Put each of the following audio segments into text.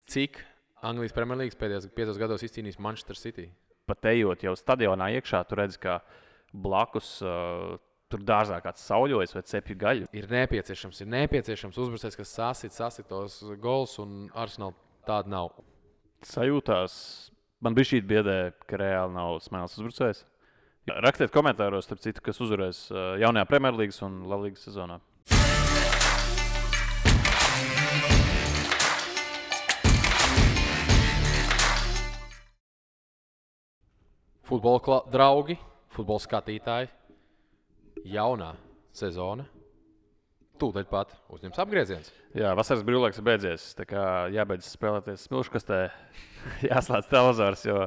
Cik Anglijas Premjerlīgas pēdējos 5 gados izcīnījis Manchester City? Pat ejot jau stadionā iekšā, tu redz, ka blakus tur dārzā kāds sauļojas vai cepju gaļu. Ir nepieciešams uzbrucējs, kas sasit tos gols, un Arsenal tāda nav. Sajūtās, man bija šī biedē, ka reāli nav smēles uzbrucējs. Rakstiet komentāros, starp citu, kas uzvarēs jaunajā Premjerlīgas un La Ligas sezonā. Futbola draugi, futbola skatītāji, jaunā sezona. Tūdaļ pat uzņems apgrieziens. Jā, vasaras brīvlaiks ir beidzies. Tā kā jābeidz spēlēties smilškastē, jāslēdz televizors, jo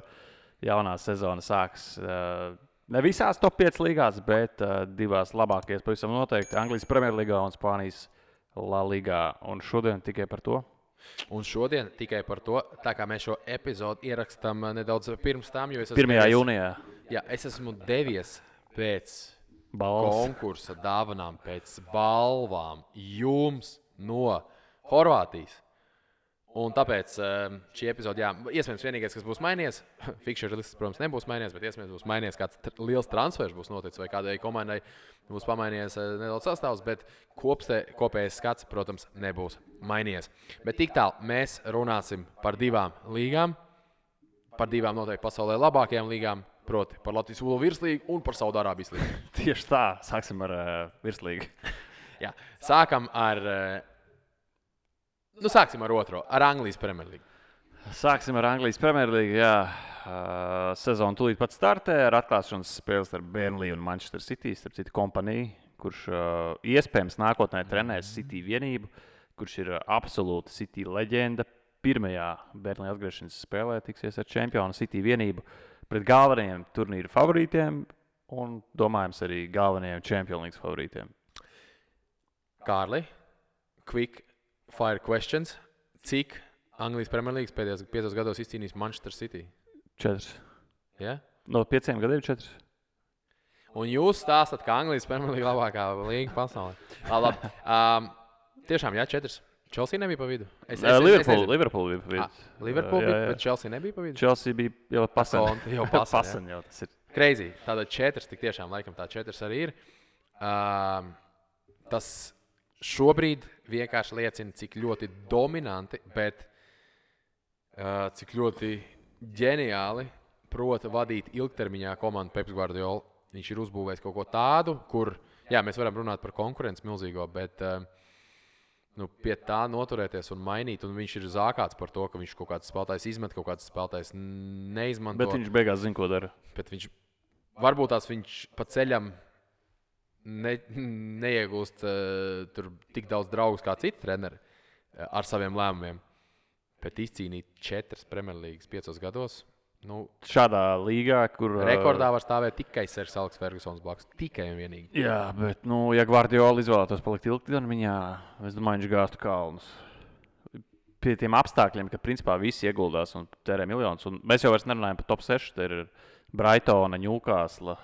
jaunā sezona sāks ne visās top 5 līgās, bet 2 labākajās pavisam noteikti. Anglijas Premjerlīgā un Spānijas La Ligā. Un šodien tikai par to. Tā kā mēs šo epizodu ierakstām nedaudz pirms tam, jo es 1. jūnijā. Jā, es esmu devies pēc Balvas. konkursa dāvanām, pēc balvām jums no Horvātijas. Un tāpēc šī epizode, jā, iespējams vienīgais, kas būs mainījies, fikšera lists, protams, nebūs mainījies, bet iespējams būs mainījies kāds liels transfers būs noticis vai kādai komandai būs pamainījies nedaudz sastāvs, bet kopējais skats, protams, nebūs mainījies. Bet tik tālu mēs runāsim par 2 līgām, par 2 noteikti pasaulē labākajām līgām, proti par Latvijas futbola virslīgu un par Saudārābijas līgu. Tieši tā, sāksim ar virslīgu. Jā, sākam ar otro, ar Anglijas Premjerlīgu. Sāksim ar Anglijas Premjerlīgu. Jā, sezona tūlīt pat startē ar atklāšanas spēles ar Burnley un Manchester City. Starp citu kompaniju, kurš iespējams nākotnē trenēs City vienību, kurš ir absolūta City leģenda. Pirmajā Burnley atgriešanas spēlē tiksies ar čempionu City vienību pret galvenajiem turnīru favorītiem un, domājams, arī galvenajiem Champions League favorītiem. Kārli, quick fire questions. Cik Anglijas Premjerlīgas pēdējos 5 gados izcīnījis Manchester City? 4. Ja? No 5 gadiem 4. Un jūs stāstat, ka Anglijas Premjerlīga labākā līga pasaulē. Labi. Tiešām, jā, 4. Chelsea nebija pa vidu. Liverpool bija pa vidu. Liverpool bija, bet Chelsea nebija pa vidu? Chelsea bija jau pasaņ. Jau pasaņ, jau tas ir. Crazy. Tātad 4, tik tiešām laikam tā 4 arī ir. Tas šobrīd vienkārši liecina, cik ļoti dominanti, bet cik ļoti ģeniāli prota vadīt ilgtermiņā komandu Peps Guardiola. Viņš ir uzbūvējis kaut ko tādu, kur, jā, mēs varam runāt par konkurenci milzīgo, bet pie tā noturēties un mainīt, un viņš ir zākāts par to, ka viņš kaut kāds spēlētājs izmet, kaut kāds spēlētājs neizmanto. Bet viņš beigās zina, ko dara. Bet varbūt viņš pa ceļam neiegūst tur tik daudz draugus kā citi treneri ar saviem lēmumiem. Bet izcīnīt 4 Premjerlīgas 5 gados. Šādā līgā, kur rekordā var stāvēt tikai Sers Aleks Fergusons blakus. Tikai un vienīgi. Jā, bet, ja Guardiola izvēlētos palikt ilgtermiņā, es domāju, viņš gāztu kalnus. Pie tiem apstākļiem, ka principā visi ieguldās un tērē miljonus. Un mēs jau vairs nerunājam par top 6. Te ir Brightona, Newcastle,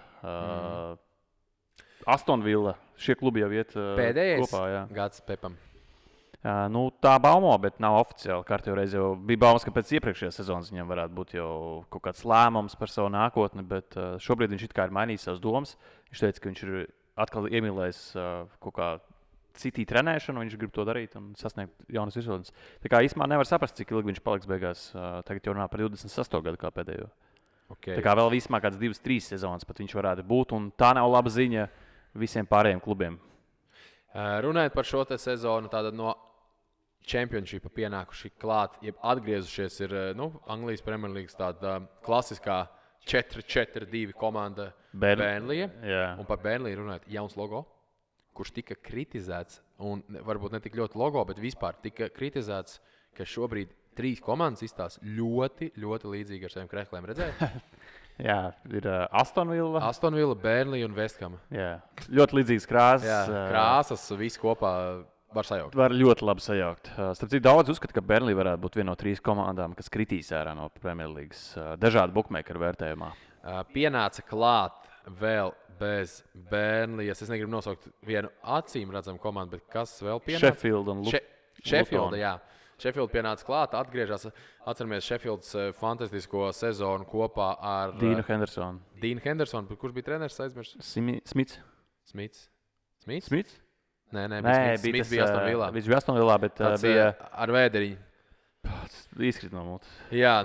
Aston Villa. Šie klubi jau iet pēdējais kopā. Jā. Gads Pepam. Tā baumo, bet nav oficiāli. Kārtībā reiz jau bija baumas, ka pēc iepriekšējās sezonas viņam varētu būt jau kaut kāds lēmums par savu nākotni, bet šobrīd viņš it kā ir mainījis savas domas. Viņš teica, ka viņš ir atkal iemīlējis kaut kā City trenēšanu, viņš grib to darīt un sasniegt jaunas virsotnes. Tā kā īstenībā nevar saprast, cik ilgi viņš paliks beigās. Tagad jau runā par 28 gadu kā pēdējo. Okay. Tā kā vēl vismaz kāds 2-3 sezonas pat viņš varētu būt, un tā nav laba ziņa visiem pārējiem klubiem. Runājot par šo te sezonu, tātad no Championshipa pienākuši klāt, jeb atgriezušies ir Anglijas Premjerlīgas tāda klasiskā 4-4-2 komanda Burnley. Un par Burnley runājot, jauns logo, kurš tika kritizēts, un varbūt ne tik ļoti logo, bet vispār tika kritizēts, ka šobrīd 3 komandas izstās ļoti, ļoti līdzīgi ar saviem krēkliem. Redzēji? Jā, ir Aston Villa, Burnley un West Ham. Jā, ļoti līdzīgas krāsas. Jā, krāsas, viss kopā. Var sajaukt. Var ļoti labi sajaukt. Starp citu, daudz uzskata, ka Burnley varētu būt viena no 3 komandām, kas kritīs ārā no Premjerlīgas. Dažādu bookmakeru vērtējumā. Pienāca klāt vēl bez Burnley. Es negribu nosaukt vienu acīm redzamu komandu, bet kas vēl pienāca? Sheffield un Sheffield, jā. Sheffield pienāca klāt, atgriežas. Atceramies Sheffields fantastisko sezonu kopā ar Dīnu Hendersonu. Dīnu Hendersonu. Kurš bija treneris? Aizmirst? Smits. Smits? Nē, Smits bija Aston Villā. Viņš bija Aston Villā, bet bija ar vēderiņu. Izkrit no mutes. Jā,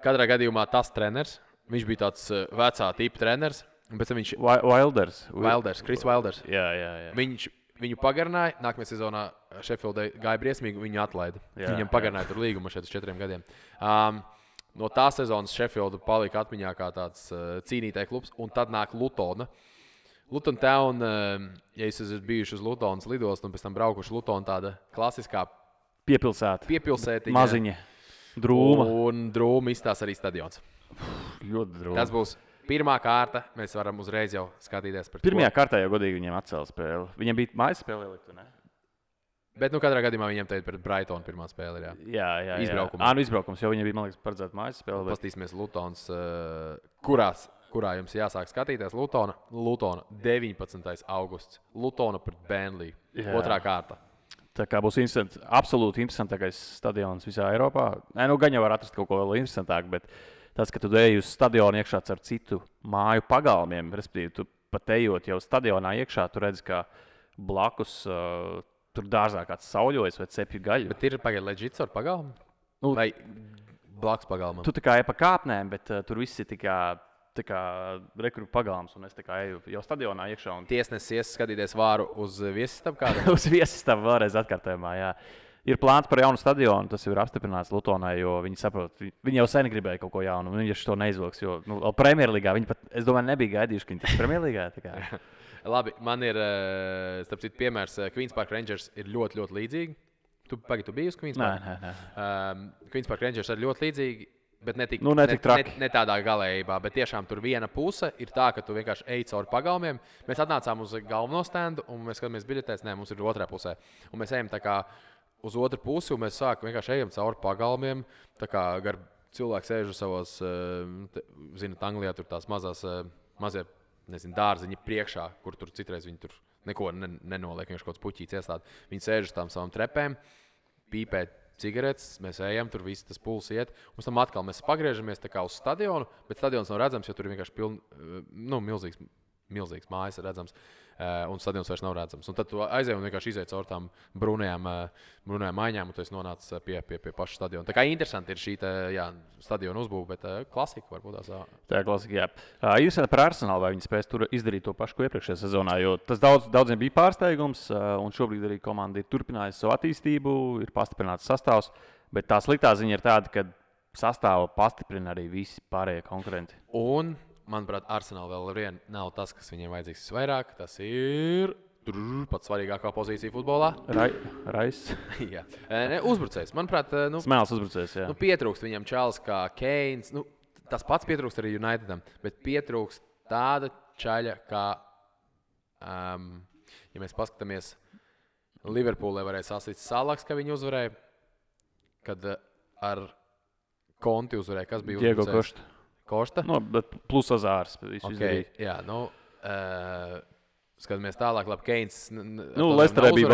katrā gadījumā tas treneris. Viņš bija tāds vecā tipa treneris. Viņš Chris Wilders. Jā. Viņu pagarināja. Nākamajā sezonā Sheffieldai gāja briesmīgi, viņu atlaida. Viņam pagarināja tur līgumu šeit uz 4 gadiem. No tā sezonas Sheffielda palika atmiņā kā tāds cīnītāja klubs, un tad nāk Lutona. Luton Town, ja jūs esat bijuši uz Lutonas lidostu un pēc tam braukuši Lutona, tāda klasiskā piepilsētiņa. Maziņa. Drūma. Un drūma izstās arī stadions. Ļoti drūma. Tas būs pirmā kārta. Mēs varam uzreiz jau skatīties par to. Pirmajā kārtā jau godīgi viņiem atcēla spēli. Viņiem bija mājas spēle ielikt, ne? Bet katrā gadījumā viņiem te ir pret Brightonu pirmā spēle. Jā. Izbraukums, jo viņiem bija, man liekas, paredzēta mājas spēle. Pastīsimies Lutons, kurā jums jāsāk skatīties. Lutona 19. augusts. Lutona pret Burnley. Otrā kārta. Tā kā būs absolūti interesantākais stadions visā Eiropā. Gan jau var atrast kaut ko vēl interesantāku, bet tas, ka tu ej uz stadionu iekšā ar citu māju pagalmiem, respektīvi, tu pat ejot jau stadionā iekšā, tu redzi, ka blakus tur dārzā kāds sauļojas vai cepju gaļu. Bet ir pagaidām leģits ar pagalmu? Vai blakus pagalmam? Tu tā kā ej pa kāpnēm, bet tur viss ir tā kā rekrutu pagalms, un es tā kā eju jau stadionā iekšā. Tiesnesis skatīties vāru uz viesistabu kādā? Uz viesistabu vēlreiz atkārtojumā, jā. Ir plāns par jaunu stadionu, tas ir apstiprināts Lutonai, jo viņi saprot, viņi jau sen gribēja kaut ko jaunu, un viņi to neizvilks, jo Premjerlīgā viņi pat, es domāju, nebija gaidījuši, ka viņi tiks Premjerlīgā. Labi, man ir, starp citu, piemērs, Queen's Park Rangers ir ļoti, ļoti līdzīgi. Tu biji uz Queen's Park? Nē. Queen's Park Rangers ir ļoti līdzīgi. Bet ne tādā galējībā, bet tiešām tur viena puse ir tā, ka tu vienkārši ej cauri pagalmiem. Mēs atnācām uz galveno standu, un mēs skatāmies biļetēs, mums ir otrā pusē. Un mēs ejam tā kā uz otru pusi, un mēs vienkārši ejam cauri pagalmiem. Tā kā gar cilvēki sēž uz savos, zināt, Anglijā tur tās mazie, dārziņi priekšā, kur tur citreiz viņi tur neko nenoliek, vienkārši kaut kāds puķīts iestādi. Viņi sēž uz tām savām trepēm, pīpē cigaretes, mēs ejam, tur viss tas puls iet. Un pēc tam atkal mēs pagriežamies tā kā uz stadionu, bet stadions nav redzams, jo tur ir vienkārši milzīgs mājas redzams, un stadions vairs nav redzams. Un tad tu aizej un vienkārši izej caur tām brūnajām maiņām, un tu esi nonācis pie paša stadiona. Tā kā interesanti ir šī stadiona uzbūve, bet klasika varbūt tās. Tā ir klasika, jā. Interesanti par Arsenalu, vai viņi spēs tur izdarīt to pašu, ko iepriekšējā sezonā, jo tas daudziem bija pārsteigums, un šobrīd arī komanda ir turpinājusi savu attīstību, ir pastiprināts sastāvs, bet tā sliktā ziņa ir tāda, ka sastāvu pastiprina arī visi pārējie konkurenti. Un manuprāt, Arsenal vēl vien nav tas, kas viņiem vajadzīgs visvairāk. Tas ir pats svarīgākā pozīcija futbolā. Rais. Jā. Uzbrucējs. Manuprāt, Smēls uzbrucējs, jā. Pietrūkst viņam čalis kā Keins. Tas pats pietrūkst arī Unitedam, bet pietrūkst tāda čaļa, kā, ja mēs paskatāmies, Liverpoolē varēja sasīt Salaks, ka viņi uzvarēja, kad ar Konti uzvarēja. Kas bija Diego Kosta? Bet plus Azārs. Okay, jā, skatāmies tālāk, labi, Keins. Lesterē bija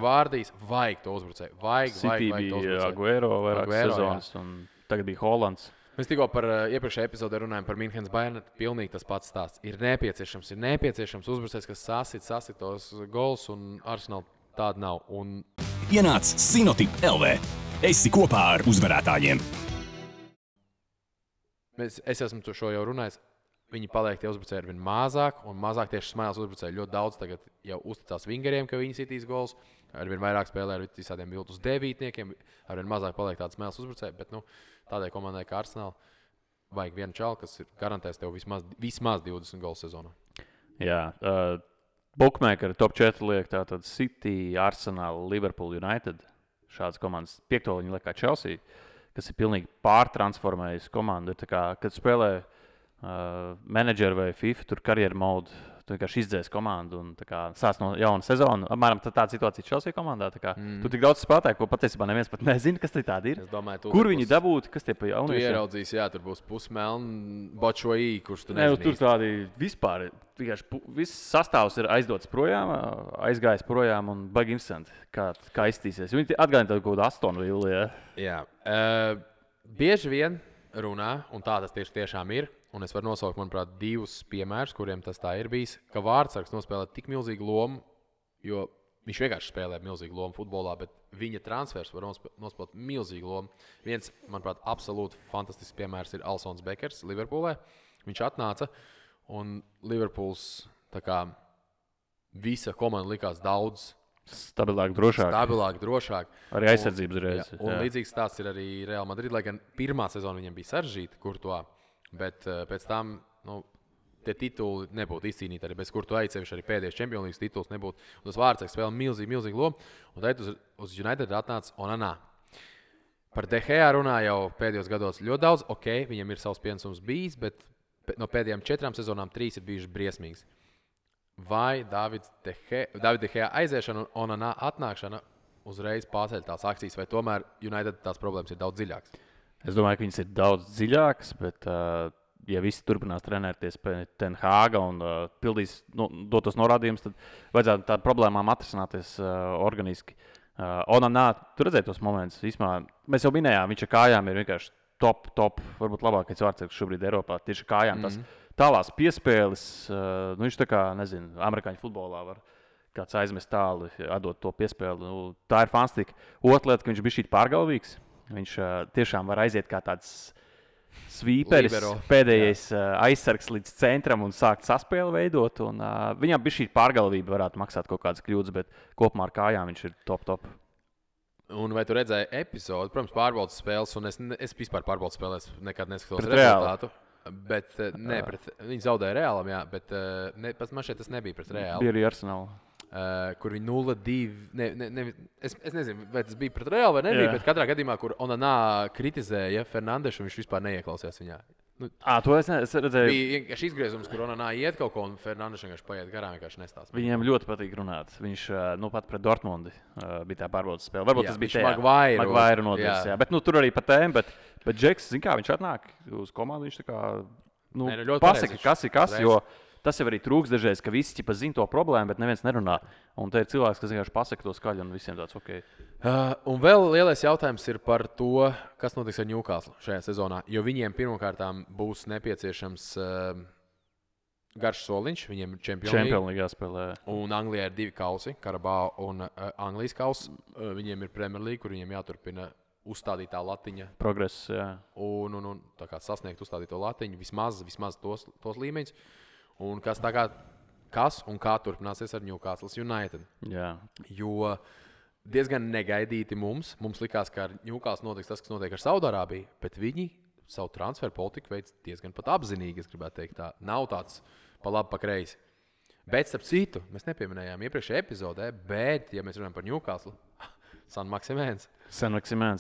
Vārdijs. Vajag to uzbrucēju. City bija Aguero vairāk sezonas, un tagad bija Holands. Mēs tikko par iepriekšējā epizodē runājam par Münchenes Bayern. Pilnīgi tas pats stāsts. Ir nepieciešams uzbrucējs, kas sasit tos gols, un Arsenal tāda nav. Ienāc Sinotip LV. Esi kopā ar uzvarētājiem. Es esmu to jau runājis. Viņi paliek tie uzbrucēji ar vien mazāk, un mazāk tieši Smēls uzbrucēji. Ļoti daudz tagad jau uzticās vingeriem, ka viņi sitīs gols. Ar vien vairāk spēlē ar visādiem viltus devītniekiem. Ar vien mazāk paliek tāds Smēls uzbrucēji. Bet tādai komandai kā Arsenal vajag vienu čalu, kas garantēs tev vismaz 20 gols sezonā. Jā, Bookmakeri top 4 liek tātad City, Arsenal, Liverpool, United. Šādas komandas 5. viņi liek kā Chelsea, kas ir pilnīgi pārtransformējusi komandu. Tā kā, kad spēlē menedžeri vai FIFA, tur karjeru modu, tu vienkārši izdzēsi komandu un sāc no jauna sezona. Apmēram tāda situācija Chelsea komandā. Tu tik daudz spēlētāju, ko patiesībā neviens pat nezina, kas tie tādi ir. Kur viņi dabūtu, kas tie pa jauniešiem? Tu ieraudzīsi, jā, tur būs pusmelni Bočoī, kurš tu nezini. Tur tādi vispār, viss sastāvs ir aizdots projām, aizgājis projām un baigi interesanti, kā iztīsies. Viņi atgādina kaut kādu Aston Villa. Jā. Bieži vien runā, un tā tas tiešām ir. Un es varu nosaukt, manuprāt, 2 piemērus, kuriem tas tā ir bijis, ka vārdsargs nospēlē tik milzīgu lomu, jo viņš vienkārši spēlē milzīgu lomu futbolā, bet viņa transfers var nospēlēt milzīgu lomu. Viens, manuprāt, absolūti fantastisks piemērs ir Alsons Bekers Liverpoolē. Viņš atnāca, un Liverpools visa komanda likās daudz stabilāk, drošāk. Arī aizsardzības reiz. Un līdzīgs stāsts ir arī Real Madrid, lai gan pirmā sezona viņam bija sarežģīta, kur to. Bet pēc tam tie tituli nebūtu izcīnīti arī bez kur tu aizcevišķi arī pēdējais Champions League tituls nebūtu. Un tas vārdsargs spēlē milzīgu lomu. Un tad uz United atnāca Onana. Par De Gea runā jau pēdējos gados ļoti daudz. Ok, viņam ir savs pienesums bijis, bet no pēdējām 4 sezonām 3 ir bijušas briesmīgas. Vai David De Gea aiziešana un Onana atnākšana uzreiz pārceļ tās akcijas, vai tomēr United tās problēmas ir daudz dziļākas? Es domāju, ka viņas ir daudz dziļākas, bet, ja visi turpinās trenēties pie Ten Hāga un pildīs dotos norādījumus, tad vajadzētu tādām problēmām atrisināties organiski. Onana, tu redzēji tos momentus. Mēs jau minējām, viņš ar kājām ir vienkārši top, varbūt labākais vārdsargs šobrīd Eiropā. Tieši ar kājām tas tālās piespēles, viņš tā kā, nezinu, amerikāņu futbolā var kāds aizmest tālu, atdot to piespēli. Tā ir fantastika. Otra lieta, ka viņš bija šī pārgalvīgs. Viņš tiešām var aiziet kā tāds svīperis, pēdējais aizsargs līdz centram un sākt saspēli veidot. Un, viņam bija šī pārgalvība, varētu maksāt kaut kādas kļūdas, bet kopumā ar kājām viņš ir top. Un vai tu redzēji epizodi, protams, pārbaudas spēles, un es vispār pārbaudas spēlēs nekad neskatos rezultātu. Bet, viņi zaudēja Reālam, jā, bet man šeit tas nebija pret Reālu. Bija arī Arsenal. Kur viņi 0-2. Es nezinu, vai tas bija pret Reālu vai nebija, bet katrā gadījumā, kur Onana kritizēja Fernandešu, viņš vispār neieklausījās viņā. To es redzēju. Bija šis izgriezums, kur Onana iet kaut ko, un Fernandeša vienkārši paiet garām, vienkārši nestāsta. Viņiem ļoti patīk runāt. Viņš pat pret Dortmundi bija tā pārbaudas spēle. Varbūt tas bija Maguire nodevis. Bet tur arī pa tēmu. Bet Džeks, zin kā, viņš atnāk uz komandu, viņš tā kā pasaka, kas ir kas, jo tas jau arī trūks dažreiz, ka visi zina to problēmu, bet neviens nerunā. Un te ir cilvēks, kas vienkārši pasaka to skaļi un visiem tāds ok. Un vēl lielais jautājums ir par to, kas notiks ar Newcastle šajā sezonā. Jo viņiem pirmkārt būs nepieciešams garš soliņš, viņiem ir Champions League spēlē. Un Anglijā ir 2 kausi, Karabao un Anglijas kauss. Viņiem ir Premier League, kur viņiem jāturpina uzstādītā latiņa. Progress, jā. Un tā kā sasniegt uzstādīto latiņu, vismaz tos līmeņus. Un kas un kā turpināsies ar Newcastle United. Jā. Jo diezgan negaidīti mums likās, ka ar Newcastle notiks tas, kas notiek ar Saudārābiju, bet viņi savu transferu politiku veids diezgan pat apzinīgi, es gribētu teikt tā. Nav tāds pa labi, pa kreisi. Bet, starp citu, mēs nepieminējām iepriekšējā epizodē, bet, ja mēs runājam par Newcastle, San Maksimēns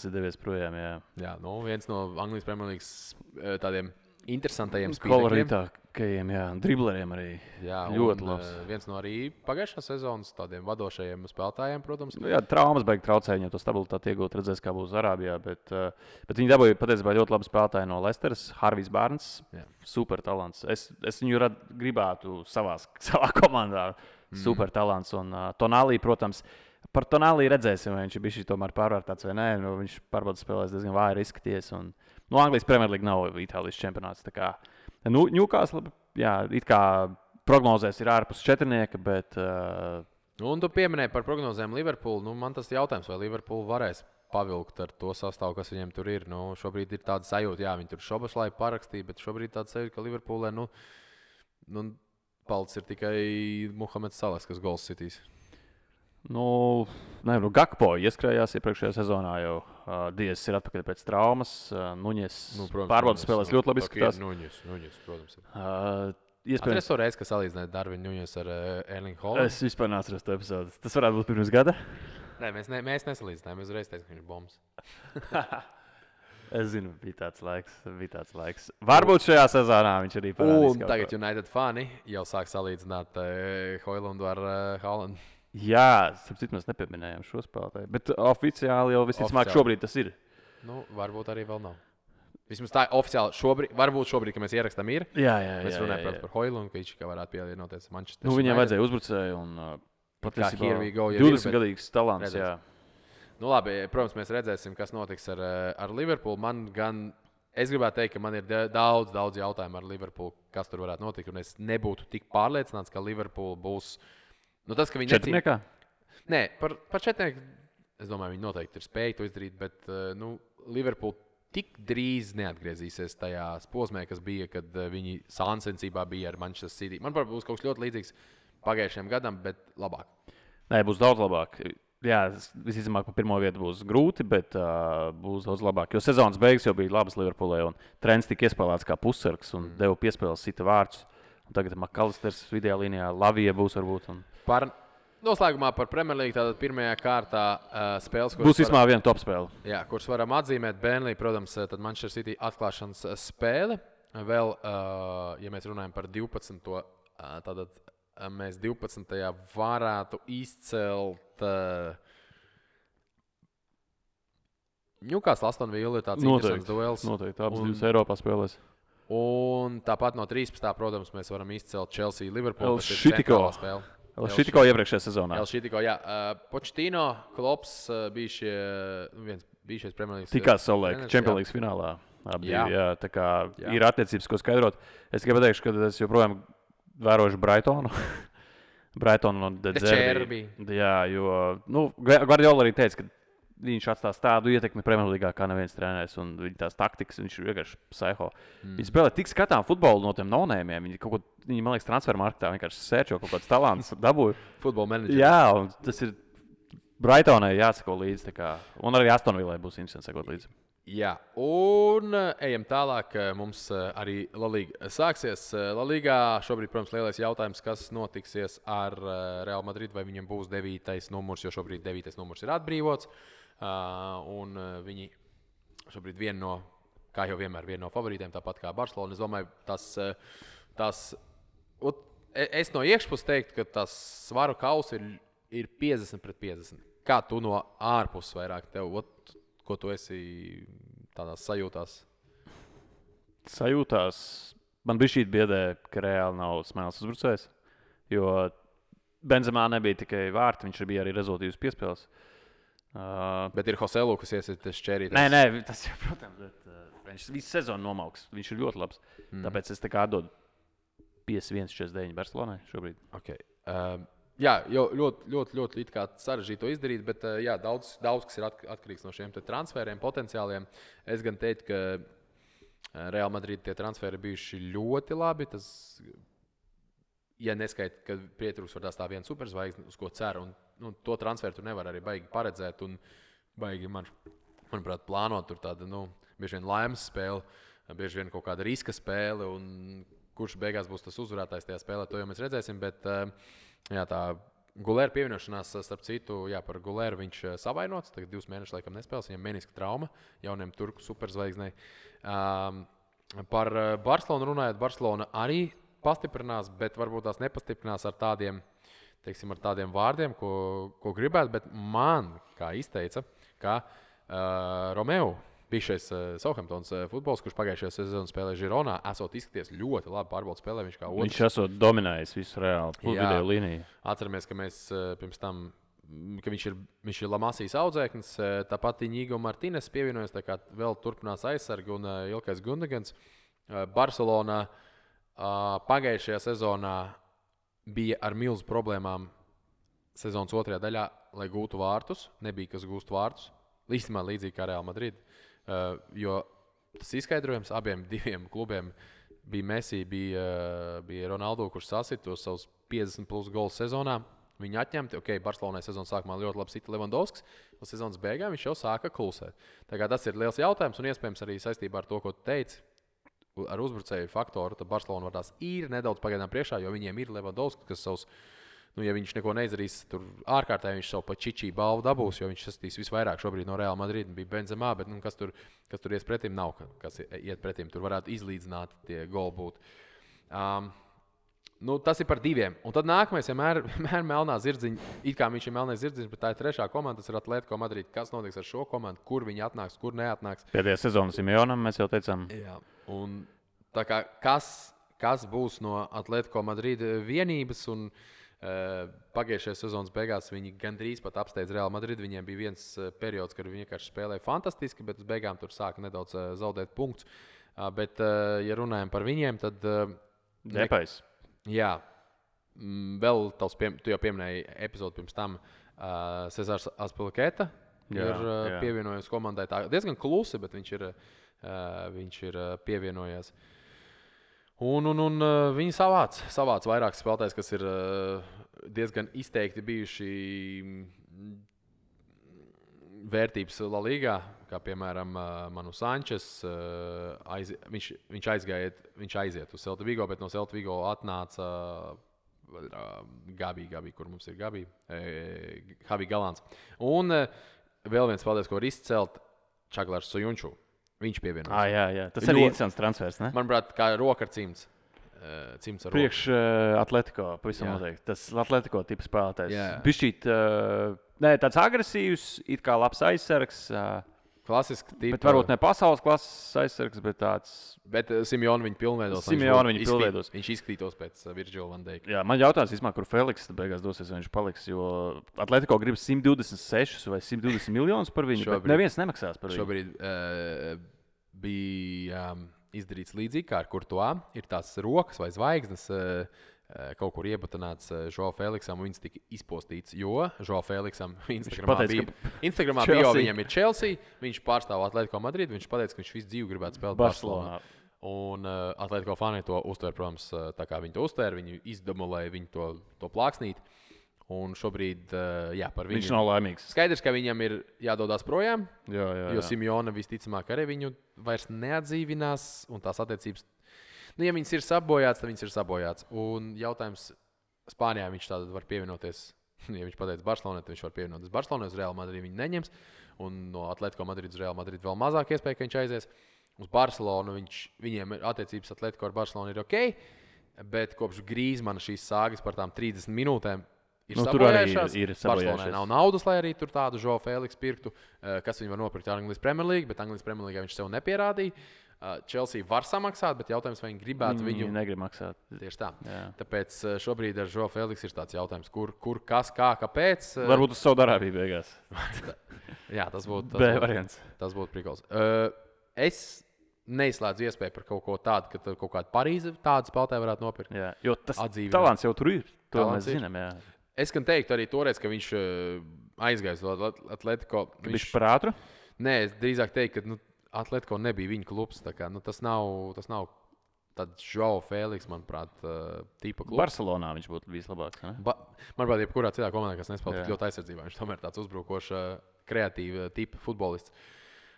ir devies projām, jā. Jā, viens no Anglijas Premier Leagues tādiem interesantajiem spīļiem. Kolorītākajiem, jā, dribleriem arī. Jā, ļoti labs. Viens no arī pagājušās sezonas tādiem vadošajiem spēlētājiem, protams. Jā, traumas beig traucēja, viņam to stabilitāti iegūt, redzēs, kā būs Arābijā, bet viņi dabūja patiesībā ļoti labu spēlētāju no Leicesteras, Harvijs Barnes, super talants. Es viņu gribētu savā komandā, super talants. Un Tonālī, protams, par Tonālī redzēsim, vai viņš ir bijis tomēr pārvērtāts vai nē. Viņš pārbaudas spēlēs diezgan vāji izskaties. Anglijas Premier League nav Itālijas čempionāts. Newcastle, jā, it kā prognozēs ir ārpus 4, bet... Un tu pieminēji par prognozēm Liverpool. Man tas jautājums, vai Liverpool varēs pavilkt ar to sastāvu, kas viņiem tur ir. Šobrīd ir tāda sajūta, jā, viņi tur Šoboslai parakstīja, bet šobrīd tāda sajūta, ka Liverpoolē, palicis ir tikai Muhameds Salahs, kas gols sitīs. Gakpo ieskrējās iepriekšējā sezonā jau. Diezs ir atpakaļ pēc traumas. Nuņes pārbaudas spēlēs ļoti labi izskatās. Nuņes, protams. Iespējams, es to reizi, ka salīdzināju Darvinu Nuņes ar Erlingu Haalandu. Es vispār neatceros to epizodi. Tas varētu būt pirms gada? Nē, mēs nesalīdzinājām. Mēs uzreiz teicām, ka viņš ir bombs. Es zinu, bija tāds laiks. Varbūt šajā sezonā viņš arī parādīs. Un tagad United fani jau sāk salīdzināt Hoilandu ar Haalandu. Jā, sapratu, mēs nepieminējām šo spēlētāju. Bet oficiāli jau visticamāk šobrīd tas ir. Nu, varbūt arī vēl nav. Vismaz tā oficiāli šobrīd, varbūt šobrīd, kad mēs ierakstām, ir. Jā. Mēs runājam par Hoilandu, ka viņš varētu pievienoties Manchester. Nu, viņam vajadzēja uzbrucēju un patiesībā 20-gadīgs talants. Jā. Nu, labi, protams, mēs redzēsim, kas notiks ar Liverpoolu. Es gribētu teikt, ka man ir daudz jautājumu ar Liverpoolu, kas tur varētu notikt. Un es nebūtu tik pārliecināts, ka Liverpool būs. Nu, tas, ka viņi četrniekā? Nē, par četrnieku. Es domāju, viņi noteikti ir spējuši to izdarīt. Bet Liverpool tik drīz neatgriezīsies tajā posmē, kas bija, kad viņi sāncensībā bija ar Manchester City. Man būs kaut kas ļoti līdzīgs pagājušajam gadam, bet labāk. Nē, būs daudz labāk. Jā, visticamāk, pa pirmo vietu būs grūti, bet būs daudz labāk. Jo sezonas beigas jau bija labas Liverpoolē, un trends tika iespēlēts kā pussargs un deva piespēles sita vārdus. Un tagad Makalisters vidējā līnijā, Lavija būs varbūt. Noslēgumā par Premier League tātad pirmajā kārtā spēles, kuras būs vismaz viena top spēle. Jā, kuras varam atzīmēt. Burnley, protams, tad Manchester City atklāšanas spēle. Vēl, ja mēs runājam par 12. Tātad mēs 12. varētu izcelt Newcastle Aston Villa, tāds interesants duels. Noteikti, abas divas Eiropā spēlēs. Un tāpat no 13. protams, mēs varam izcelt Chelsea Liverpool. Šitiko iepriekšējā sezonā. Šitiko, jā. Pochettino, Klops bija šie Premier League. Tikās savulaik Champions League finālā. Jā, tā kā ir attiecības, ko skaidrot. Es tikai pateikšu, ka es joprojām vērošu Brightonu. Brightonu no De Zerbi. Jā, jo Guardiola arī teica, ka viņš atstās tādu ietekmi Premjerlīgā kā neviens treneris, un viņa tās taktikas, viņš ir vienkārši psiho. Viņi spēlē tik skatām futbolu no tiem nonēmiem. Viņi man liekas, transfermarktā vienkārši sērčo kaut kāds talants, dabūja. Futbola menedžeri. Jā, un tas ir Brightonai jāsako līdzi, un arī Aston Villai būs interesanti sekot līdzi. Jā, un ejam tālāk. Mums arī La Liga sāksies. La Ligā šobrīd, protams, lielais jautājums, kas notiksies ar Real Madrid, vai viņam būs 9. numurs, jo šobrīd 9. numurs ir atbrīvots. Un viņi šobrīd kā jau vienmēr, viena no favorītiem, tāpat kā Barcelona. Es domāju, es no iekšpuses teiktu, ka tas svaru kauss ir 50-50. Kā tu no ārpuses vairāk ko tu esi tādās sajūtās? Man bija šī biedē, ka reāli nav smēles uzbrucējs, jo Benzemā nebija tikai vārti, viņš bija arī rezultīvs piespēles. Bet ir Joselu, kas iesaistīts šķērīt. Nē, tas jau, protams, viņš visu sezonu nomauks. Viņš ir ļoti labs. Tāpēc es tā kā atdodu 51-49 Barcelonai šobrīd. Okay. Jā, ļoti sarežģīti to izdarīt, bet jā, daudz kas ir atkarīgs no šiem transferiem, potenciāliem. Es gan teiktu, ka Real Madrid tie transferi bijuši ļoti labi. Tas, ja neskaita, ka pietrūks var tā viena superzvaigzne, uz ko cer. Un to transferu tur nevar arī baigi paredzēt un baigi, manuprāt, plānot tur tādu, bieži vien laimes spēli, bieži vien kaut kāda riska spēle, un kurš beigās būs tas uzvarētājs tajā spēlē, to jau mēs redzēsim, bet jā, tā Gulēra pievienošanās, starp citu, jā, par Gulēru viņš savainots, tagad 2 mēnešus laikam nespēles, viņam meniska trauma, jauniem turku superzvaigznei. Par Barcelonu runājot, Barcelona arī pastiprinās, bet varbūt tās nepastiprinās ar tādiem, teiksim, ar tādiem vārdiem, ko gribētu, bet man, kā izteica, ka Romeo, bijušais Southamptons futbols, kurš pagājušajā sezonā spēlēja Žironā, esot izskaties ļoti labi pārbaudas spēlē. Viņš esot dominējis visu reāli video līniju. Atceramies, ka mēs pirms tam, ka viņš ir Lamasijas audzēknis, tāpat Iņigo Martīnes pievienojas, tā kā vēl turpinās aizsargi un Ilkais Gundegans. Barcelona pagājušajā sezonā bija ar milzu problēmām sezonas otrajā daļā, lai gūtu vārtus. Nebija, kas gūst vārtus. Īstenībā līdzīgi kā Real Madrid. Jo tas izskaidrojums abiem diviem klubiem bija Messi, bija Ronaldo, kurš sasita tos savus 50+ gols sezonā. Viņi atņemti. Barcelonai sezonas sākumā ļoti labi sita Levandovskis, un sezonas beigās viņš jau sāka klusēt. Tā kā tas ir liels jautājums, un iespējams arī saistībā ar to, ko tu teici, ar uzbrucēju faktoru, tad Barcelona var tās ir nedaudz pagaidām priekšā, jo viņiem ir Levandovskis, kas savus Nu, ja viņš neko neizdarīs, tur ārkārtēji viņš savu pačičī balvu dabūs, jo viņš sastīs visvairāk šobrīd no Real Madrid. Bija Benzemā, bet kas tur ies pretim, nav kas iet pretim. Tur varētu izlīdzināt tie goli būt. Tas ir par 2. Un tad nākamais vienmēr melnā zirdziņa. It kā viņš ir melnais zirdziņš, bet tā ir 3. komanda, tas ir Atletico Madrid. Kas notiks ar šo komandu, kur viņi atnāks, kur neatnāks? Pēdējā sezonā Simeonam mēs jau teicām. Jā. Un tā kā kas būs no Atletico Madrid vienības un pagājušajā sezonas beigās viņi gandrīz pat apsteidz Real Madrid. Viņiem bija viens periods, kad viņi vienkārši spēlēja fantastiski, bet uz beigām tur sāka nedaudz zaudēt punktus. Bet, ja runājam par viņiem, tad... Depais. Jā. Vēl tu jau pieminēji epizodi pirms tam. Cezars Azpilicueta ir pievienojies komandai. Tā diezgan klusi, bet viņš ir pievienojies. Un viņi savāc vairākas spēlētājas, kas ir diezgan izteikti bijuši vērtības La Ligā, kā piemēram Manu Sančes. Viņš aiziet uz Celta Vigo, bet no Celta Vigo atnāca Gabi, kur mums ir Gabi, Javi Galants. Un vēl viens spēlētājs, ko var izcelt, Čaglars Sojunču. Viņš pievienojas. Jā. Tas arī interesants transfers, ne? Manuprāt, kā roka ar cimds. Priekš Atletico, pavisam noteikti. Tas Atletico tipa spēlētājs. Bišķīt, tāds agresīvs, it kā labs aizsargs. Klasiski tipa. Bet varbūt ne pasaules klases aizsargs, bet tāds... Bet Simeonu viņu pilnveidos. Viņš izskatītos pēc Virgila van Dijka. Jā, man jautājums, kur Feliks beigās dosies, vai viņš paliks, jo Atletico grib 126 vai 120 miljonus par viņu, bet neviens nemaksās par viņu. Šobrīd bija izdarīts līdzīgi kā ar Courtois. Ir tās rokas vai zvaigznes kaut kur iebatanāts Joao Feliksam, un viņas tika izpostīts, jo Joao Feliksam Instagramā bio viņam ir Chelsea, viņš pārstāv Atletico Madrid, viņš pateica, ka viņš visu dzīvi gribētu spēlēt Barcelonā. Un Atletico fani to uztver, protams, tā kā viņi to uztver, viņi izdemolēja viņu to plāksnīt. Un šobrīd, par viņu... Viņš nav laimīgs. Skaidrs, ka viņam ir jādodas projām, jo Simeona visticamāk arī viņu vairs neatdzīvinās, un tās attiecības, ja viņas ir sabojāts, tad viņas ir sabojāts. Un jautājums, Spānijā viņš tātad var pievienoties, ja viņš pateica Barcelonai, tad viņš var pievienoties Barcelonai, uz Real Madrid viņu neņems, un no Atletico Madrid uz Real Madrid vēl mazāk iespēja, ka viņš aizies. Uz Barcelonu viņiem attiecības Atletico ar Barcelonu ir ok, bet kopš Grīzmana šīs sāgas par tām 30 minūtēm tur arī ir Barcelonai nav naudas, lai arī tur tādu Joao Feliks pirktu, kas viņu var nopirkt Anglijas Premier League, bet Anglijas Premier League viņš sev nepierādīja. Chelsea var samaksāt, bet jautājums, vai viņi gribētu viņu... Viņi negrib maksāt. Tieši tā. Jā. Tāpēc šobrīd ar Joao Feliks ir tāds jautājums, kur kas, kā, kāpēc. Varbūt uz Saudārābiju beigās. Jā, tas būtu variants. Tas būtu prikals. Es neizslēdzu iespēju par kaut ko tādu, ka kaut kāda Parīze tādu spēlētāju varētu nopirkt. Jā, jo tas talants jau tur ir. To mēs zinām, jā. Es gan teiktu arī toreiz, ka viņš aizgājis uz Atletico. Viņš par ātru? Nē, es drīzāk teiktu, ka Atletico nebija viņa klubs. Kā, tas nav tāds Joao Feliks, manuprāt, tipa klubs. Barcelonā viņš būtu vislabāks. Manuprāt, jebkurā citā komandā, kas nespēlē tik ļoti aizsardzībā, viņš tomēr tāds uzbrukošs, kreatīvs tipa futbolists.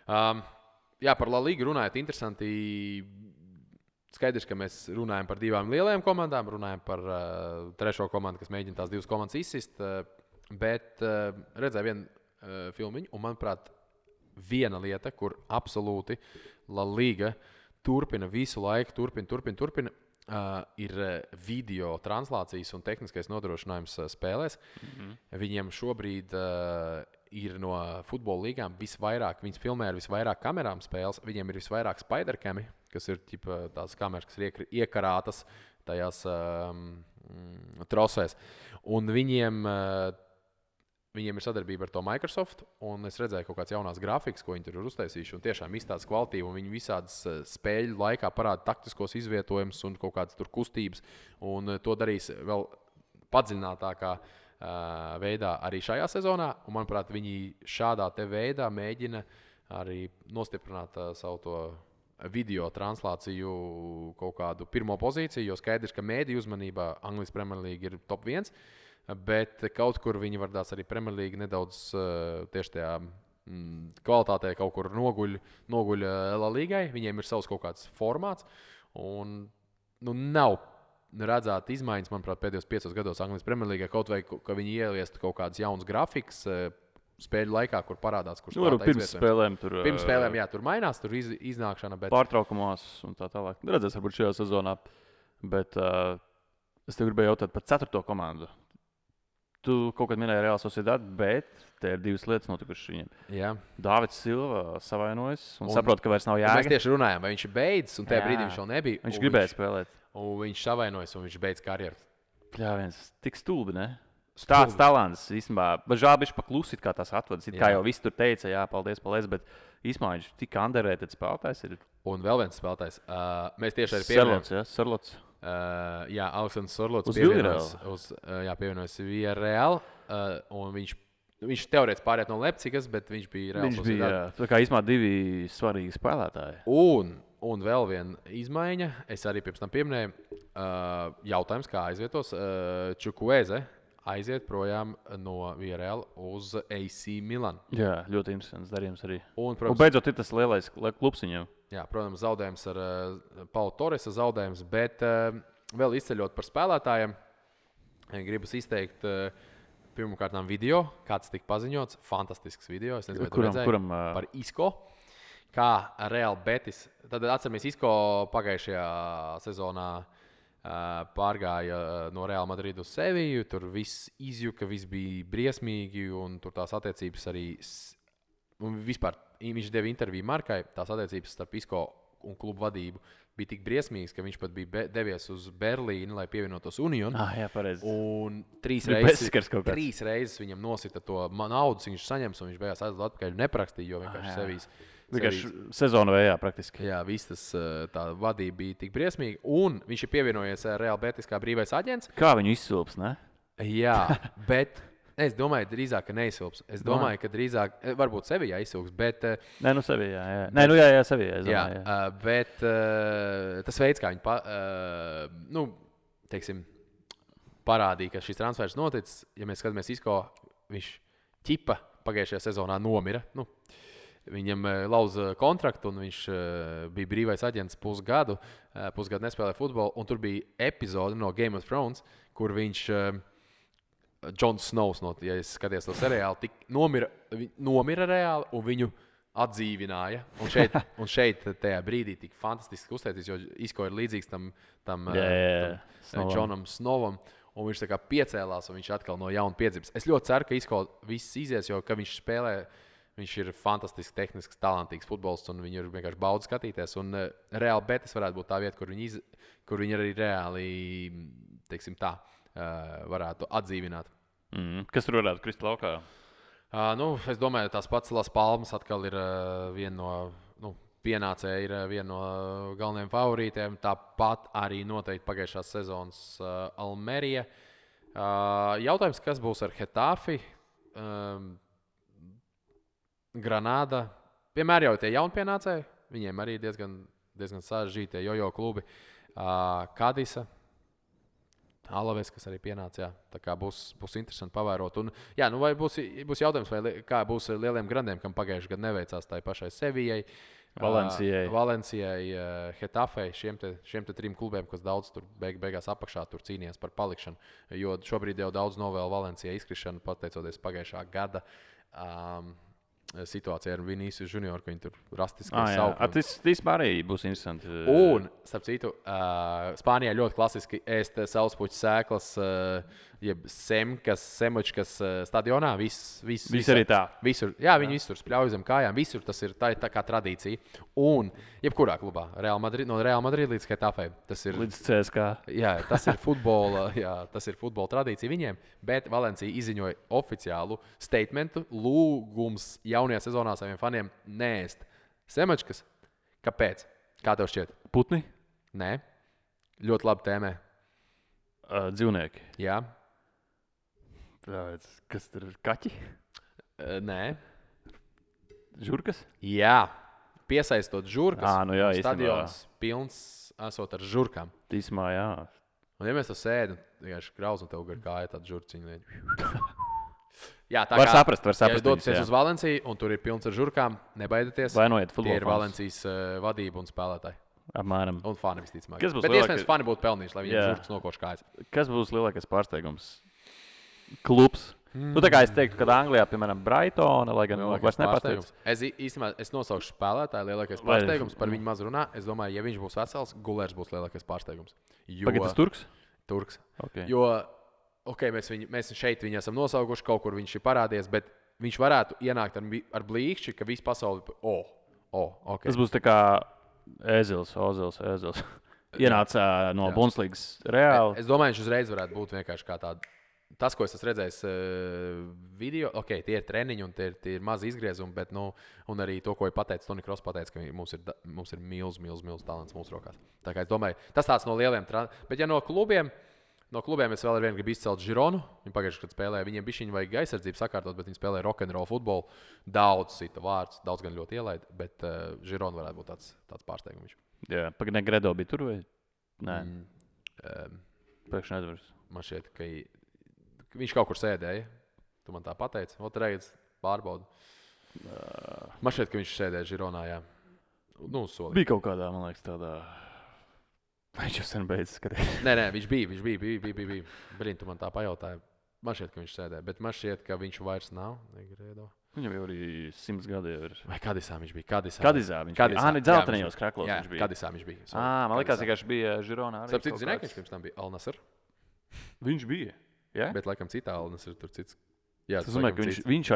Par La Ligu runājot, interesanti. Skaidrs, ka mēs runājam par divām lielajām komandām, runājam par trešo komandu, kas mēģina tās divas komandas izsist. Bet redzēju vienu filmiņu, un manuprāt, viena lieta, kur absolūti La Liga turpina visu laiku, turpina, ir video translācijas un tehniskais nodrošinājums spēlēs. Viņiem šobrīd ir no futbola līgām visvairāk, viņas filmē ar visvairāk kamerām spēles, viņiem ir visvairāk spidercami, kas ir tās kameras, kas ir iekarātas tajās trosēs. Un viņiem ir sadarbība ar to Microsoft, un es redzēju kaut kāds jaunās grafikas, ko viņi tur ir uztaisījuši, un tiešām izstādes kvalitīvi, un viņi visādas spēļu laikā parāda taktiskos izvietojumus un kaut kādas tur kustības, un to darīs vēl padziļinātākā veidā arī šajā sezonā, un manuprāt, viņi šādā te veidā mēģina arī nostiprināt savu to video translāciju kaut kādu pirmo pozīciju, jo skaidrs, ka mēdīju uzmanībā Anglijas Premier League ir top 1, bet kaut kur viņi vardās arī Premier League nedaudz tieši tajā kvalitātē kaut kur noguļ La Ligai, viņiem ir savs kaut kāds formāts, un nav redzēt izmaiņas, manuprāt, pēdējos 5 gados Anglijas Premjerlīgā, kaut vai ka viņi ieliestu kaut kādas jaunas grafikas spēļu laikā, kur parādās, kurš pirms spēlēm tur mainās, tur iznākšana. Bet... Pārtraukumos un tā tālāk. Redzēs, varbūt šajā sezonā. Bet es tev gribēju jautāt par 4. komandu. Tu kaut kad minēji Real Sociedad, bet te ir 2 lietas notikušas viņiem. Jā. Dāvids Silva savainojas un saprot, ka vairs nav jēga. Mēs tieši runājām, vai viņš ir beidzis, un tajā brīdī viņš vēl nebija. Viņš gribēja spēlēt. Un viņš savainojas, un viņš beidz karjeru. Jā, viens tik stulbi, ne? Tāds talants, īstenībā. Bet žēl bišķi paklusit, kā tas atvadas. Kā jau viss tur teica, jā, paldies, bet īstenībā viņš tik underrated spēlētājs ir. Un vēl viens spēlētājs. Mēs tieši arī pieminējām. Sarlots. Jā, Aleksandrs Sorlots pievienojas Villarreal. Un viņš teorētiski pāriet no Leipzigas, bet viņš bija Real Sociedad. Viņš bija, tā kā īstenībā 2 svarīgi spēlētāji. Un vēl viena izmaiņa, es arī pirms tam pieminēju, jautājums, kā aizvietos. Čukueze aiziet projām no Villarreal uz AC Milan. Jā, ļoti interesants darījums arī. Un beidzot ir tas lielais klubs viņam. Jā, protams, zaudējums ar Paulu Torresa zaudējums, bet vēl izceļot par spēlētājiem, gribas izteikt pirmkārt video, kāds tika paziņots. Fantastisks video, es nezinu, vai tu redzēji, par Isco. Kā Real Betis. Tad atceramies, Isco pagājušajā sezonā pārgāja no Real Madrid uz Seviju. Tur viss izjuka, viss bija briesmīgi, un tur tās attiecības arī... Un vispār viņš deva interviju Markai. Tās attiecības starp Isco un klubu vadību bija tik briesmīgas, ka viņš pat bija devies uz Berlīni, lai pievienotos Union. Jā, pareizi. Un 3 reizes viņam nosita to naudu, viņš saņems, un viņš beigās aizlūdz atpakaļ neprakstīja, jo vienkārši Sevijas... Vienkārši sezonu vējā praktiski. Jā, viss tas tā vadība bija tik briesmīga. Un viņš ir pievienojies Real Betis kā brīvais aģents. Kā viņu izsilps, ne? Jā, bet es domāju, drīzāk, ka neizsilps. Es domāju, ka drīzāk, varbūt Sevijā izsilps, bet... Nē, nu Sevijā, jā. Nē, nu jā, Sevijā, es domāju, jā. Bet tas veids, kā viņi, teiksim, parādīja, ka šis transfers noticis, ja mēs skatāmies Isco, viņš ķipa pagājušajā sezonā nomira. Viņam lauza kontraktu, un viņš bija brīvais aģents pusgadu nespēlēja futbolu. Un tur bija epizode no Game of Thrones, kur viņš, Jon Snows, ja es skaties to seriālu, nomira reāli, un viņu atdzīvināja. Un šeit tajā brīdī tik fantastiski uzteicis, jo Isco ir līdzīgs tam Jonam Snovam. Un viņš tā kā piecēlās, un viņš atkal no jauna piedzims. Es ļoti ceru, ka Isco viss izies, jo ka viņš spēlē... Viņš ir fantastisks, tehnisks, talantīgs futbolists, un viņu ir vienkārši baudi skatīties. Un Real Betis varētu būt tā vieta, kur viņi arī reāli, teiksim tā, varētu atdzīvināt. Kas tur varētu krist laukā? Es domāju, tās pats Las Palmas atkal ir viena no, pienācēja ir viena no galvenajiem favorītiem. Tāpat arī noteikti pagājušās sezonas Almerija. Jautājums, kas būs ar Hetafi? Granāda. Vienmēr jau tie jaunpienācēji. Viņiem arī diezgan sarežģītie jojo klubi. Kadisa, Alaves, kas arī pienāca. Tā kā būs interesanti pavērot. Un, vai būs jautājums, vai kā būs lieliem grandiem, kam pagājušajā gadā neveicās tai pašai Sevijai, Valencijai, Hetafei, šiem te 3 klubiem, kas daudz tur beigās apakšā tur cīnījās par palikšanu. Jo šobrīd jau daudz novēl Valencijai izkrišanu, pateicoties pagājušā gada situācija ar Vinicius Junior, ka viņi tur rastiski sauc. Tas īstenībā arī būs interesanti. Un, starp citu, Spānijā ļoti klasiski ēst sauspuķu sēklas, jeb semučkas stadionā. Viss arī tā. Visur, viņi visur spļauj zem kājām. Visur tas ir tā kā tradīcija. Un, jebkurā klubā, no Real Madrid līdz Hetafei. Līdz CSK. Jā, tas ir futbola tradīcija viņiem, bet Valencija izziņoja oficiālu statementu, lūgums jaunajā sezonā saviem faniem neēst semačkas. Kāpēc? Kā tev šķiet? Putni? Nē. Ļoti labi tēmē. Dzīvnieki? Jā. Kas tur ir? Kaķi? Nē. Žurkas? Jā. Piesaistot žurkas. Jā, stadions pilns esot ar žurkām. Tīsmā, jā. Un ja mēs to sēdam, vienkārši krauz un tev gar kāja tāda žurciņa. Jā, tā var saprast. Ja jūs dodaties uz Valenciju un tur ir pilns ar žurkām, nebaidieties. Vai noiet futbola Tie ir Valencijas vadība un spēlētāji. Apmēram. Un fani visticamāk. Kas būs Bet lielākais- iespējams, fani būtu pelnījuši, lai viņiem Jā. žurkas nokoš kājas. Kas būs lielākais pārsteigums? Klubs. Nu, tā kā es teiktu, ka Anglijā, piemēram, Brightona, lai gan vairs nepārsteigums. Es nosaukšu spēlētāju lielākais Vai- pārsteigums, par viņu maz runā. Es domāju, ja viņš būs vesels, Gulērs būs lielākais pārsteigums. Jo Pagaid, tas Turks? Turks. Okay. Jo, mēs šeit viņu esam nosaukuši, kaut kur viņš ir parādījies, bet viņš varētu ienākt ar blīkšķi, ka visa pasaule okay. Tas būs tā kā Ozils. Ienāca no Bundeslīgas Reāli. Es domāju, viņš uzreiz varētu būt vienkārši kā tāds. Tas, ko es esmu redzējis video, tie ir treniņi un tie ir mazi izgriezumi, bet un arī to, ko ir pateicis Toni Kross, ka mums ir milzīgs talants mūsu rokās. Tā kā es domāju, tas tāds no lieliem trendiem. Bet ja no klubiem es vēl ar vienu gribu izcelt Žironu. Viņi pagājušajā gadā spēlēja, viņiem bija viņa vajag aizsardzību sakārtot, bet viņi spēlēja rock'n'roll futbolu. Daudz cita vārds, daudz gan ļoti ielaid, bet Žirona varētu būt tāds pārsteigums. Jā, pagaidām Gredo bija tur vai? Nē. Pēkšņi aizvars. Man šķiet, ka viņš kaut kur sēdēja. Tu man tā pateici. Otrais pārbaudu. Man šķiet, ka viņš sēdēja Žironā. Jā. Solī. Bija kaut kādā, man liekas, tādā. Viņš jau sen beidzis skatīties. Nē, viņš bija. Brīn, tu man tā pajautāji. Man šķiet, ka viņš sēdēja, bet man šķiet, ka viņš vairs nav. Negredo. Viņam jau arī 100 gadi ir. Vai Kadisā viņš bija? Kadizā viņš bija. Ah, ne dzeltenajos kraklos viņš bija. Kadisā viņš bija. Man liekas, ka viņš bija Žironā. Starp citu, zināji, ka viņš pirms tam bija Al-Nasr? Viņš bija. Ja? Bet, laikam, citā Al-Nasr tur cits. Jā, tas nozīmē, ka viņš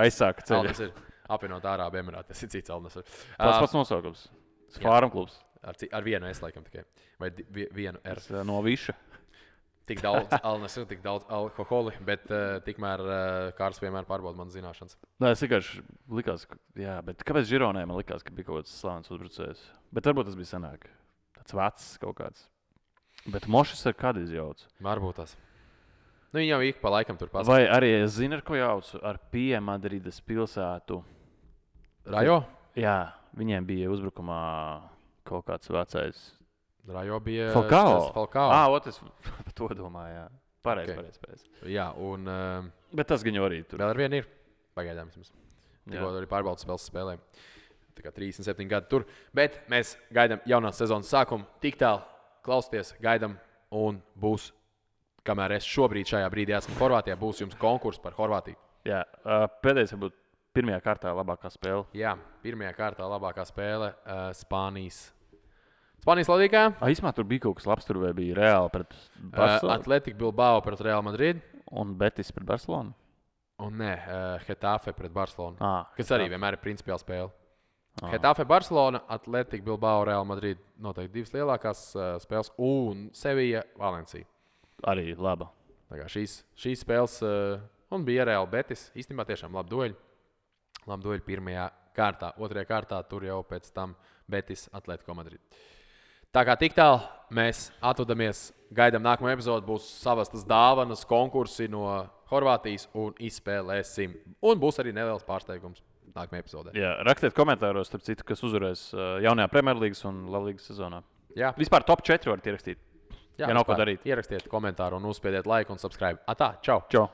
aizsāka ceļu. Al-Nasr apvienot Ārābu Emirāti. Tas ir cits Al-Nasr. Tas pats nosaukums. Fārum klubs. Ar vienu S, laikam, tikai. Vai vienu R. No Viša. Tik daudz Al-Nasr, tik daudz alkoholi, bet tikmēr Kārs vienmēr pārbauda manas zināšanas. Nē, es vienkārši likās, bet kāpēc Žironē man likās, ka bija kaut kāds slavens uzbrucējs? Bet varbūt tas bija senāk. Tāds vecs kaut kāds. Bet Mošis ar kādu izjauc. Varbūt tas. Viņi jau ik pa laikam tur pasaka. Vai arī es zinu, ar ko jaucu? Ar Madrides pilsētu. Rajo? Jā, viņiem bija uzbrukumā kaut kāds vecais. Rajo bija Falcao. Es par to domāju, jā. Pareizi. Jā, un... Bet tas gan jau arī tur. Vēl ar vienu ir. Pagaidām vismaz. Tikko arī pārbaudas spēles spēlēm. Tā kā 37 gadi tur. Bet mēs gaidām jaunās sezonas sākumu. Tik tālu klausieties, gaidām un būs, kamēr es šobrīd šajā brīdī esmu Horvātijā, būs jums konkurss par Horvātiju. Jā, pēdējais varbūt pirmajā kārtā labākā spēle. Jā, pirmajā kārtā labākā spēle Spānijas līgā. Īsumā tur bija kaut kas labs, tur bija Reāli pret Barcelonu. Atletico Bilbao pret Real Madrid. Un Betis pret Barcelonu. Un nē, Getafe pret Barcelonu. Kas arī vienmēr ir principiāla spēle. Getafe, Barcelona, Atletico Bilbao, Real Madrid. Noteikti divas lielākās spēles. Un Sevilla, Valencija. Arī laba. Tā kā šīs spēles, un bija Real Betis. Īstenībā tiešām labi dueļi. Labi dueļi pirmajā kārtā. Otrajā kārtā tur jau pēc tam Betis, Atletico Madrid. Tā kā tik tālu mēs atvadamies, gaidām nākamo epizodi, būs savastas dāvanas, konkursi no Horvātijas un izspēlēsim. Un būs arī neliels pārsteigums nākamajā epizodē. Jā, rakstiet komentāros, starp citu, kas uzvarēs jaunajā Premjerlīgas un Latvijas sezonā. Jā. Vispār top 4 varat ierakstīt. Jā, nav ko darīt. Ierakstiet komentāru un uzspiediet like un subscribe. Atā, čau! Čau!